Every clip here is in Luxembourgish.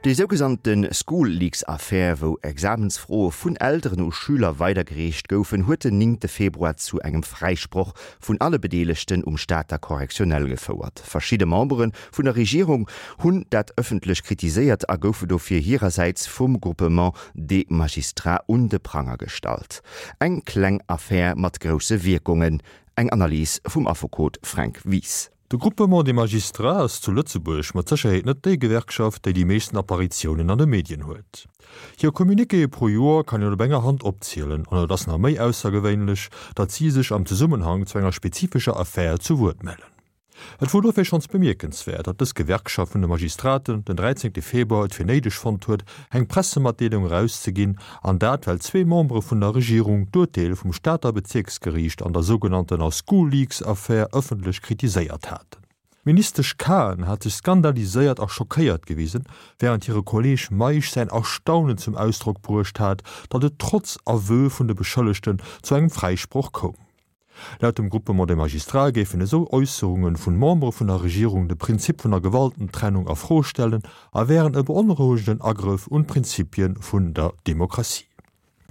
Déi sougesannte School-Leaks-Affär, wou Examensfroe vun Elteren u Schüler weidergereecht goufen, huet den néngte Februar zu engem Fräisproch vun alle Bedeelegten um Stater Correctionnel gefouert. Verschidde Membere vun der Regierung hunn dat ëffentlech kritiséiert a goufe dofir hirersäits vum Groupement des Magistrats un de Pranger gestallt. Eng kleng Affär mat grousse Wierkungen. Eng Analys vum Affekot Fränk Wies. De Groupement des Magistrats ass zu Lëtzebuerg mat Sécherheet net déi Gewerkschaft, déi déi meeschten Apparitiounen an de Medien huet. Hir Communiquéë pro Joer kann een op enger Hand opzielen an et ass nach méi aussergewéinlech, datt si sech am Zesummenhang zu enger spezifescher Affär zu Wuert mellen. Et wor dofir schonns bemierkenswäert, datt dës Gewerkschaft vun de Magistraten den 13 Februar et fir néideg fonnt huet, eng Pressematdeelung erauszeginn, an dat well zwee Membere vun der Regierung d'Urteel vum Stater Bezierksgeriicht an der sougenanntener School-Leaks-Affär ëffentlech kritiséiert haten. D'Ministesch Cahen hat sech skandaliséiert a schockéiert gewisen, wärend hire Kolleeg Meisch säin Erstaunen zum Ausdrock bruecht hat, datt et trotz Aveu vun de Beschëllegten zu engem Fräisproch koum. Laut dem Groupement des Magistrats géifen esou Äusserunge vun Membere vun der Regierung de Prinzip vun der Gewaltentrennung a Fro stellen a wären e beonrouegenden Agrëff un d'Prinzipie vun der Demokratie.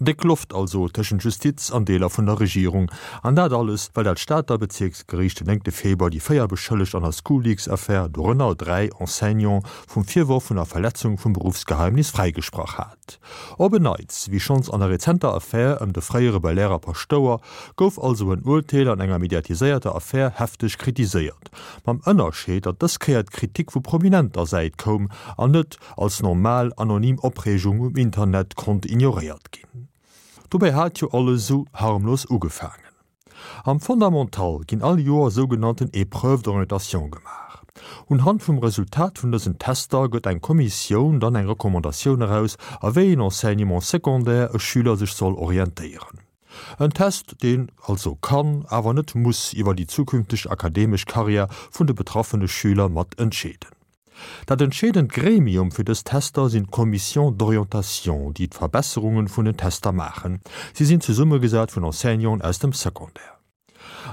Déck Loft also tëschent Justiz an Deeler vun der Regierung. An dat alles, well dat Stater Bezierksgeriicht den néngte Februar déi 4 Beschëllegt an der School-Leaks-Affär, dorënner 3 Enseignants, vum Virworf vun der Verletzung vum Beruffsgeheimnis fräigesprach hat. Op en Neits, wéi schonns an der rezenter Affär ëm de fréiere Belair Paschtouer, gouf also en Urteel an enger mediatiséierter Affär hefteg kritiséiert, mam Ënnerscheed, datt dës Kéier d'Kritik vu prominenter Säit koum an net als normal anonym Opreegung um Internet konnt ignoréiert ginn. Dobäi hat jo alles esou harmlos ugefaangen. Am Fondamental ginn all Joer sougenannten Épreuves d'orientation gemaach. Unhand vum Resultat vun dësen Tester gëtt eng Kommissioun dann eng Recommandatioun eraus, a wéi een Enseignement secondaire e Schüler sech soll orientéieren. En Test, deen also kann, awer net muss iwwer déi zukünfteg akademesch Karriär vun de betraffene Schüler mat entscheeden. Dat entscheedend Gremium fir dës Tester sinn d'Commissions d'orientation, déi d'Verbesserungen vun den Tester maachen. Si sinn zesummegesat vun Enseignanten aus dem Secondaire.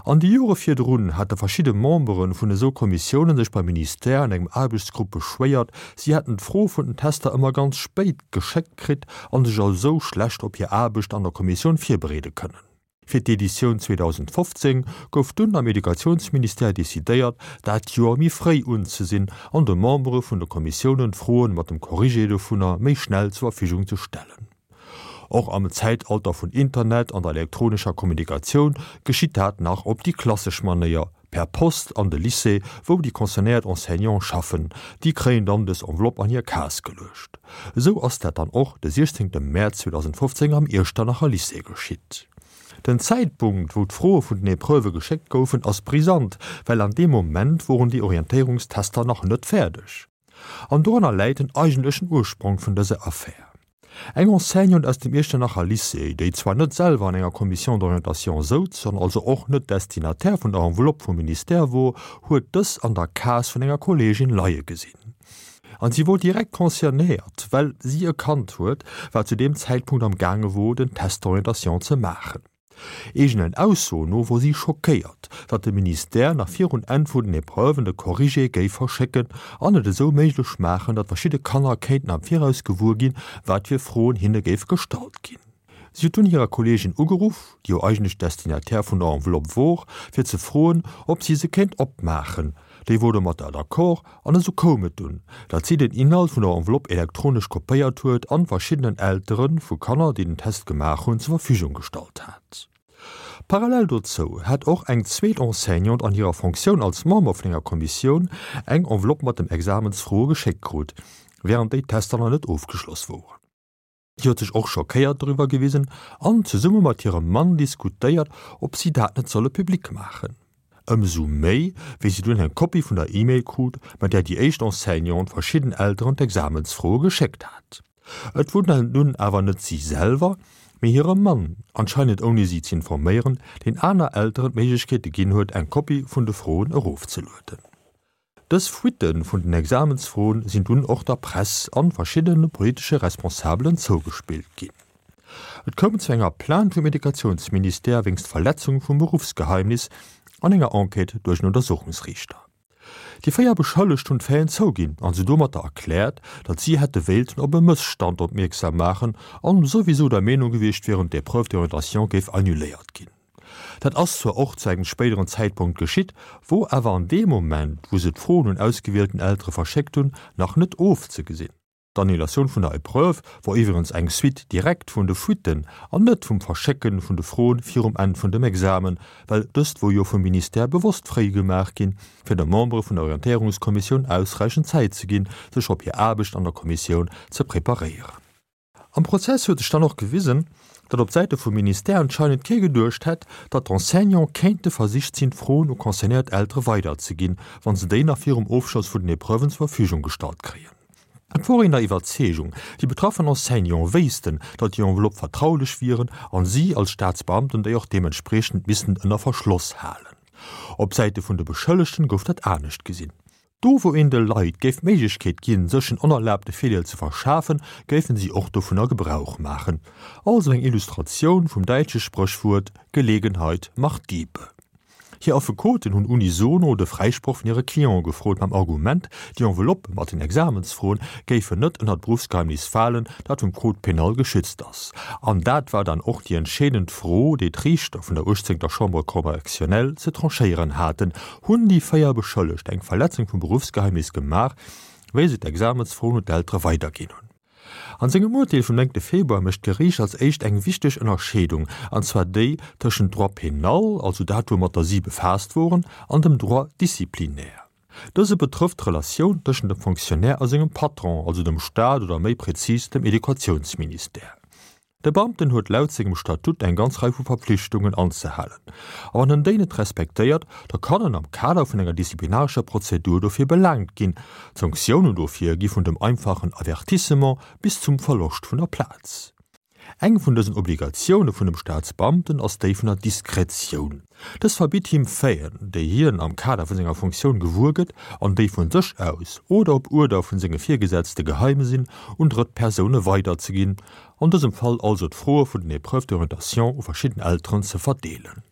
An de Jore virdrun hate verschidde Membere vun esou Kommissiounen sech beim Ministère an engem Aarbechtsgrupp beschwéiert, si hätten d'Fro vun den Tester ëmmer ganz spéit geschéckt kritt a sech esou schlecht op hir Aarbecht an der Kommissioun virbereede kënnen. Fir d'Editioun 2015 gouf dunn am Educatiounsministère decidéiert, dat Joer méi fréi unzesinn an de Membere vun de Kommissiounen d'Froen mat dem Corrigé dovunner méi schnell zur Verfügung ze stellen. Och am Zäitalter vun Internet an der elektronescher Kommunikatioun geschitt dat nach op déi klassesch Manéier, Per Post an de Lycée, wou déi concernéiert Enseignante schaffen. Déi kréien dann dës Enveloppe an hir Case geluecht. Esou ass dat dann och de 16 Mäerz 2015 am Iechternacher Lycée geschitt. Den Zäitpunkt, wou d'Froe vun den Epreuvë geschéckt goufen, ass brisant, well an deem Moment woren déi Orientéierungstester nach net fäerdeg. An doranner läit den eigentlechen Ursprong vun dëser Affär. Eng Enseignante aus dem Iechternacher Lycée, déi zwar net selwer an enger Commission d'orientation souz an also och net Destinataire vun der Enveloppe vum Ministère wor, huet dës an der Case vun enger Kolleegin leie gesinn. An si wor direkt concernéiert, well si e Kand huet, wat zu deem Zäitpunkt am gaange wor, den Test d'orientation ze maachen. Eegenen Aussoen no wor si schockéiert, datt de Ministère nach virun Enn vun den Epreuven de Corrigé géif verschécken an et esou méiglech maachen, datt verschidde Kanner kéinten am Viraus gewuer ginn, wat fir Froen hinne géif gestallt ginn. Si huet dunn hirer Kolleegin ugeruff, déi jo eigentlech Destinataire vun der Enveloppe wor, fir ze froen, ob si se kéint opmaachen. Déi wor domatter d'accord an esou koum et dunn, datt si den Inhalt vun der Enveloppe elektronesch kopéiert huet an verschiddenen Eltere vu Kanner, déi den Test gemaach hunn, zur Verfügung gestallt hat. Parallel dozou hat och eng zweet Enseignante an hirer Fonctioun als Member vun enger Kommissioun eng Enveloppe mat dem Examensfroe geschéckt krut, wärend déi Tester nach net ofgeschloss woren. Si huet sech och schockéiert doriwwer gewisen an zesumme mat hirem Mann diskutéiert, ob si dat net solle public maachen. Ëmsou méi, wéi si dunn eng Kopie vun der E-Mail krut, mat där déi éischt Enseignante verschidden Elteren d'Examensfroe geschéckt hat. Et wor nun awer net si selwer, mee hire Mann, anscheinend ouni si z'informéieren, deen aner Elteren d'Méiglechkeete ginn huet, eng Kopie vun de Froen erofzelueden. Dës Fuitte vun den Examensfroen sinn dunn och der Press an verschiddene politesche Responsabelen zougespillt ginn. Et koum zu enger Plainte vum Educatiounsministère wéinst Verletzung vum Beruffsgeheimnis an enger Enquête duerch en Untersuchungsriichter. Déi 4 Beschëllegt hunn d'Faiten zouginn an se domatter erkläert, datt si hätte wéilten op e Mësstand opmierksam maachen an souwisou der Meenung gewiescht wieren, d'Épreuve d'orientation géif annuléiert ginn. Dat ass zwar och zu engem spéideren Zäitpunkt geschitt, wor awer an deem Moment, wou se d'Froen un ausgewielten Eltere verschéckt hunn, nach net ofzegesinn. D'Annulatioun vun der Epreuve wor iwwerens eng Suite directe vun de Fuitten an net vum Verschécken vun de Froen virum Enn vun dem Examen, well dëst wor jo vum Ministère bewosst fréi gemaach ginn, fir de Membere vun der Orientéierungskommissioun ausräichend Zäit ze ginn, sech op hir Aarbecht an der Kommissioun ze preparéieren. Am Prozess huet sech dann och gewisen, datt op Säite vum Ministère anscheinend kee geduecht hätt, datt d'Enseignante kéinte versicht sinn, d'Froen u concernéiert Eltere weiderzeginn, wa se déi nach virum Ofschloss vun den Epreuven zur Verfügung gestallt kréien. Et wor een der Iwwerzeegung, déi betraffen Enseignante wéissten, datt déi Enveloppe vertraulech wieren an si als Staatsbeamten déi och deementspriechend missten ënner Verschloss halen. Op Säite vun de Beschëllegten gouf dat anescht gesinn. Do wou een de Leit géif d'Méiglechkeet ginn, sech en onerlaabte Virdeel ze verschafen, géifen si och dovunner Gebrauch maachen. Also eng Illustratioun vum däitsche Spréchwuert Gelegenheit macht Diebe. Hir Affekoten hunn unisono de Fräisproch vun hire Cliente gefrot, mam Argument, déi Enveloppe mat den Examensfroen géifen net ënner d'Beruffsgeheimnis falen, dat vum Code pénal geschützt ass. An dat war dann och déi entscheedend Fro, déi d'Riichter vun der uechtzéngter Chambre correctionnelle ze tranchéieren haten, Hunn déi 4 Beschëllegt eng Verletzung vum Beruffsgeheimnis gemaach, wéi se d'Examensfroen un d'Eltere weiderginn hunn? An sengem Urteel vum 9 Februar mécht d'Geriicht als éischt eng wichteg Ënnerscheedung, an zwar déi tëschent Droit pénal, also dat woumatter si befaasst woren, an dem Droit disciplinaire. Dëse betrëfft d'Relatioun tëschent dem Fonctionnaire a sengem Patron, also dem Staat oder méi prezis dem Educatiounsministère. De Beamten huet laut sengem Statut eng ganz Rei vu Verpflichtungen anzehalen. A wann en déi net respektéiert, da kann en am Kader vun enger disziplinarescher Prozedur dofir belaangt ginn. D'Sanktiounen dofir gi vun dem einfachen Avertissement bis zum Verloscht vun der Plaz. Eng vun dësen Obligatioune vun dem Staatsbeamten ass déi vun der Diskretioun. Dës verbitt him Faiten, déi hien am Kader vu senger Funktioun gewuer gëtt an déi vun sech aus oder op Uerder vun senge Virgesetzte geheim sinn, un drëtt Persoune weiderzeginn, an dësem Fall also d'Froe vun den Épreuves d'orientation u verschidden Elteren ze verdeelen.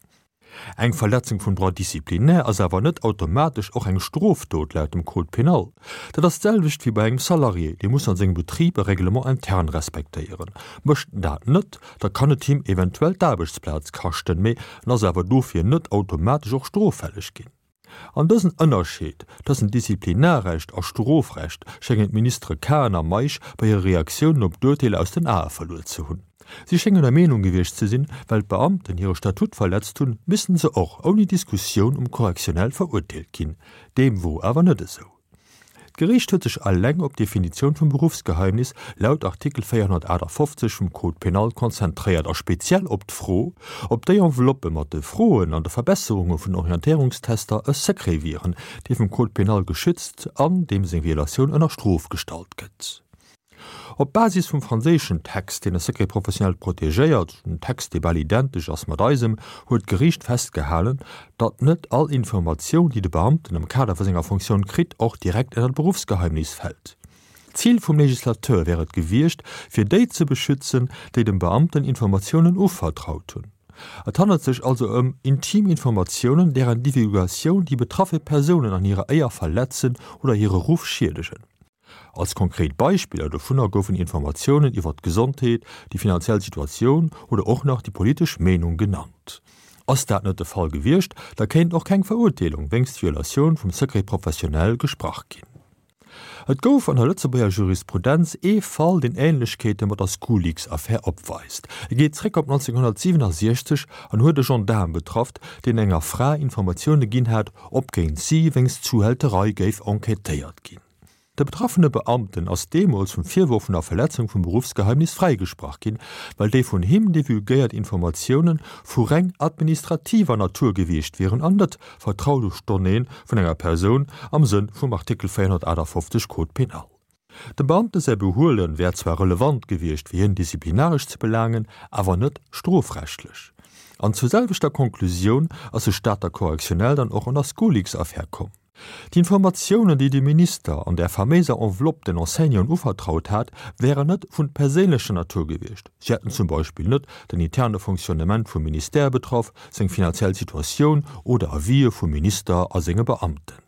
Eng Verletzung vum Droit disciplinaire ass awer net automatesch och eng Strofdot laut dem Code pénal. Dat ass d'selwecht wéi bei engem Salarié, dee muss an sengem Betrib e Règlement interne respektéieren. Mécht en dat net, da kann et him eventuell d'Aarbechtsplaz kaschten, mee en ass awer dofir net automatesch och stroffälleg ginn. An dësen Ënnerscheed tëschent Disziplinarrecht a Strofrecht schéngen d'Ministere Cahen a Meisch bei hire Reaktiounen op d'Urteeler aus den Ae verluer ze hunn. Si schéngen der Meenung gewiescht ze sinn, well d'Beamten hire Statut verletzt hunn, missten se och ouni Diskussioun um Correctionnel verurteelt ginn. Deem wor awer net esou. D'Geriicht huet sech eleng op d'Definitioun vum Beruffsgeheimnis laut Artikel 458 vum Code pénal konzentréiert a speziell op d'Fro, ob déi Enveloppe mat de Froen an de Verbesserunge vun Orientéierungstester e Secret wieren, dee vum Code pénal geschützt an deem seng Violatioun ënner Strof gestallt gëtt. Op Basis vum franséischen Text, deen e Secret professionnel protegéiert, en Text, dee bal identesch ass mat eisem, huet d'Geriicht festgehalen, datt net all Informatioun, déi de Beamten am Kader vu senger Fonctioun kritt, och direkt ënner d'Beruffsgeheimnis fält. D'Zil vum Legislateur wär et gewiescht, fir déi ze beschützen, déi dem Beamten Informatiounen uvertraut hunn. Et handelt sech also ëm intim Informatiounen, deren Divulgatioun déi betraffe Persounen an hirer Éier verletzen oder hire Ruff schiedegen. Als konkret Beispiller dovunner goufen Informatiounen iwwert d'Gesondheet, déi finanziell Situatioun oder och nach déi politesch Meenung genannt. Ass dat net de Fall gewiescht, da kéint och keng Verurteelung wéinst Violatioun vum Secret professionnel gesprach ginn. Et gouf an der Lëtzebuerger Jurisprudenz ee Fall, deen Änlechkeete mat der Schoolleaks-Affär opweist. E geet zréck op 1967 an huet e Gendaarm betrafft, deen enger Fra Informatioune ginn hat, ob géint si wéinst Zuhälterei géif enquêtéiert ginn. De betraffene Beamten ass deemools vum Virworf vun der Verletzung vum Beruffsgeheimnis fräigesprach ginn, well déi vun him divulgéiert Informatioune vu reng administrativer Natur gewiescht wieren an net vertraulech Donnéeë vun enger Persoun am Sënn vum Artikel 458 Code pénal. Dem Beamte säi Behuele wär zwar relevant gewiescht fir hien disziplinaresch ze belaangen, awer net strofrechtlech. An zur selwechter Konklusioun ass de Stater Correctionnel dann och an der Schoolleaks-Affär komm. D'Informatiounen, déi de Minister an där faméiser Enveloppe den Enseignanten uvertraut hat, wären net vun perséinlecher Natur gewiescht. Si hätten zum Beispill net den interne Fonctionnement vum Ministère betraff, seng finanziell Situatioun oder Avisë vum Minister a senge Beamten.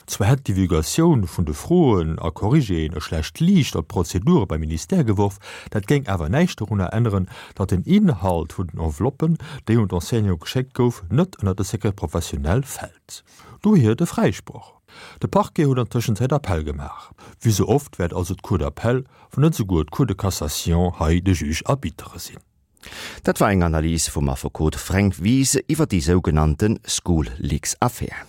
Zwar hätt d'Divulgatioun vun de Froen a Corrigéen e schlecht Liicht op d'Prozedure beim Ministère geworf, dat géing awer näischt dorunner änneren, datt den Inhalt vun den Enveloppen, déi un d'Enseignante geschéckt gouf, net ënner de Secret professionnel fält. Dohier de Fräisproch. De Parquet huet an Tëschenzäit Appell gemaach. Wéi sou oft wäert also d'Cour d'appel, wann net esouguer d'Cour de cassation hei de Juge arbitre sinn. Dat war eng Analys vum Affekot Fränk Wies iwwer déi sougenannte School-Leaks-Affär.